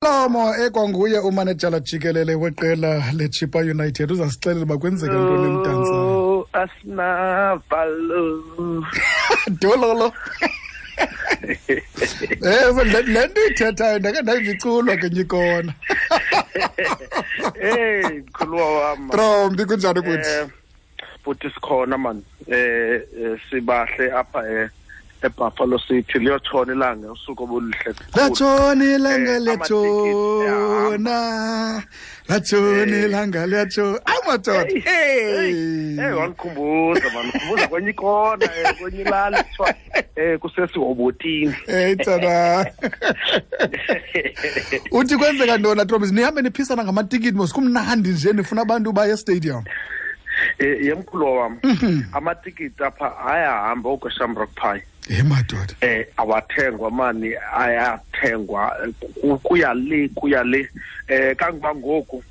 Lomo ekwanguye umanejala jikelele weqela leChippa United uzasixelela uba kwenzeka ntoni eMdantsane. Oh, asinavalo. Dololo. Eh le nto ithethayo ndake ndayiva iculwa ngenye ikona. Hey, mkhuluwa wam. Trombi kunjani kuthi? Eh, Bhuti sikhona man. Eh, sibahle apha eBuffalo City liyotshona ilanga usuku obuluhle kakhulu. Latshona ilanga Amatikiti liyatshona. Latshona ilanga liyatshona. Ayi madoda. Hey, Hey. wandikhumbuza man, ndikhumbuza kwenye ikona, kwenye ilali kuthiwa kusesihobotini. Hey tsana. Uthi kwenzeka ntoni Trombi? Nihambe niphisana ngamatikiti mos kumnandi nje nifuna abantu baye estadium. Yemkhulu wam. Amatikiti apha ayahamba okweShamrock Pie. Hey madoda. Awathengwa mani, ayathengwa kuya le kuya le. Kangoba ngoku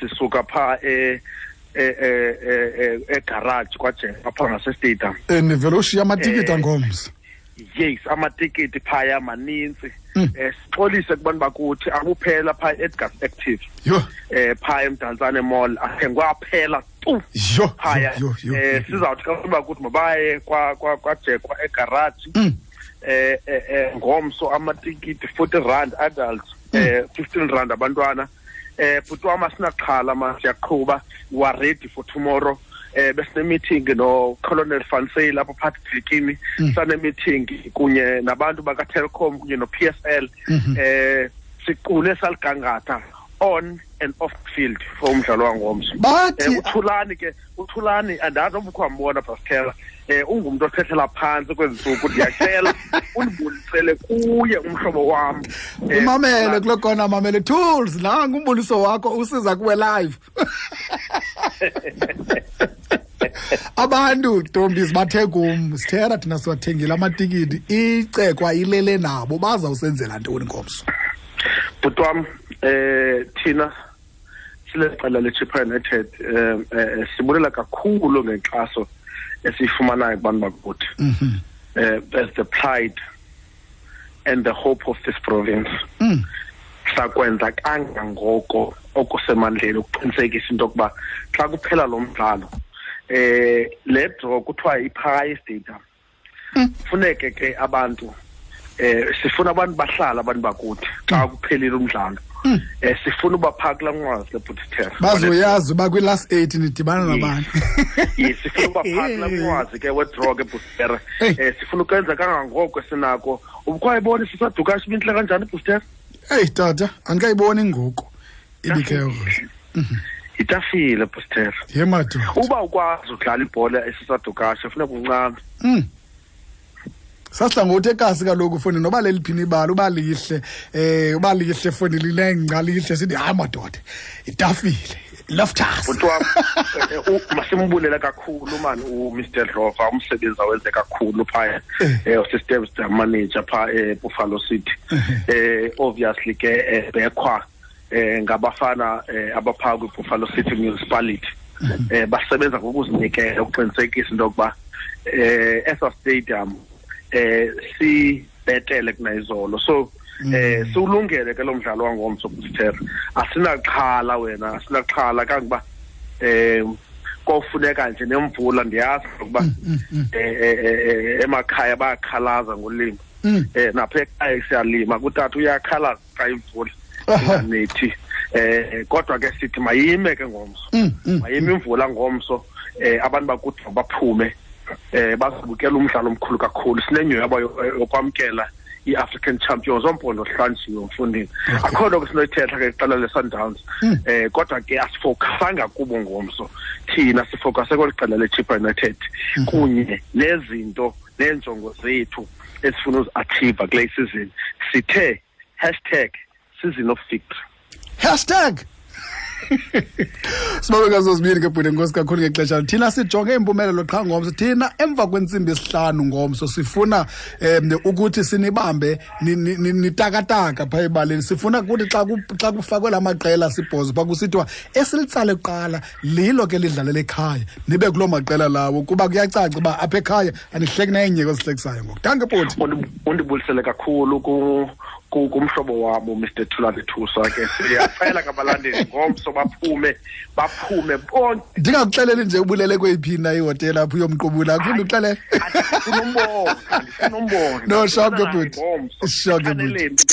sisuka pha egarage kwaJeka pha ngase stadium. Nivele ushiya amatikiti angomso. Yes, amatikiti phaya maninzi. Sixolise kubantu bakuthi akuphela pha Edgar's Active. Yho. Pha eMdantsane Mall athengwa aphela tu. Yho. Phaya. Yho, yho, yho. Sizawuthi xa bakuthi mabaye kwaJekwa egarage. Ngomso amatikiti 40 rand adults, 15 rand abantwana. Bhuti wam asinaxhala ma siyaqhuba, we are ready for tomorrow. Besine meeting no Colonel Van Zyl lapha phakathi Bikini. Sane meeting kunye nabantu baka Telkom kunye no PSL. Siqule saligangatha on and off field for umdlalo wangomso. Bathi uThulani ke, uThulani andazi noba ukhe wambona Pascal. Ungumntu othethela phantsi kwezi ntsuku, ndiyacela undibulisele kuye umhlobo wam. Umamele kuloo kona, mamele tools nangu umbuliso wakho usiza kuwe live. Abantu ntombi bathe kum sithera thina siwathengile amatikiti, icekwa ilele nabo, bazawusenzela ntoni ngomso? Bhuti wam, thina sileqela leChippa United, sibulela kakhulu ngenkxaso esiyifumanayo kubantu bakuthi. As the pride and the hope of this province. Sakwenza kangangoko okusemandleni ukuqinisekisa into yokuba xa kuphela lo mdlalo, le draw kuthiwa iphaya stadium. Funeke ke abantu, sifuna abantu bahlala abantu bakuthi xa kuphelile umdlalo. Sifuna uba phaa kulaa nqwazi leBhutiterra. Bazoyazi uba kwi-last 8 nidibana nabantu. Yes, sifuna uba phaa kulaa nqwazi ke wedraw ke Bhutiterra. Hey. Sifuna ukwenza kangangoko esinako. Ubukwayibona sisaduka ibintle kanjani Bhutiterra? Hey tata, andikayiboni ngoku. Ibikhe Itafile Bhutiterra. Ye madoda. Uba ukwazi udlala ibhola esisadukashe funeka uncame. Sasihla ngokuthi ekasi kaloku foni noba leliphini ibala uba lihle, uba lihle foni linengca lihle sithi hayi madoda itafile loftus. Bhuti wam, masimbulela kakhulu man uMr Dlova, umsebenzi awenze kakhulu phaya, uSystem manager pha eBuffalo City. Obviously ke bekhwa ngabafana abapha kwiBuffalo City Municipality. Basebenza ngokuzinikela ukuqinisekisa into yokuba esa stadium sibetele kunayizolo. So siwulungele ke lo mdlalo wangomso Bhutiterra. Asinaxhala wena, asinaxhala kangoba kofuneka nje nemvula, ndiyazi ukuba emakhaya bayakhalaza ngolimo. Napha ekhaya siyalima, kutata uyakhalaza xa imvula inganethi. Kodwa ke sithi mayime ke ngomso. Mayime imvula ngomso, abantu bakuthi baphume, bazobukela umdlalo omkhulu kakhulu. Sinenyhweba yokwamkela i-African Champions ompondo hlanjiwe mfundini. Akho nto ke sinoyithetha ke iqela le-Sundowns. Kodwa ke asifokasanga kubo ngomso. Thina sifokase kweli qela le-Chippa United kunye nezinto neenjongo zethu esifuna uzi-achieve kule season. Sithe hashtag season of victory. Hashtag Sibabe ngazozibini ke bhuti, enkosi kakhulu ngexesha. Thina sijonge impumelelo qha ngomso. Thina emva kwentsimbi yesihlanu ngomso sifuna ukuthi sinibambe nitakataka phaa ebaleni. Sifuna ukuthi xa kufakwe la maqela sibhozo phaa kusithiwa esilitsale kuqala lilo ke lidlalela ekhaya, nibe kuloo maqela lawo, kuba kuyacaca uba apha ekhaya anihleki nenye kwezihlekisayo ngoku. Danke bhuti. Undibulisele kakhulu ku Kumhlobo wam uMr Thulani Thusa ke, siyacela kabalandeli ngomso baphume, baphume bonke. Ndingakuxeleli nje ubulele kweyiphi na ihotela apho uyomqubula, akufuni uxelele. Andifuna umbona, andifuna umbona. No, sharp ke bhuti. Sharp ke bhuti.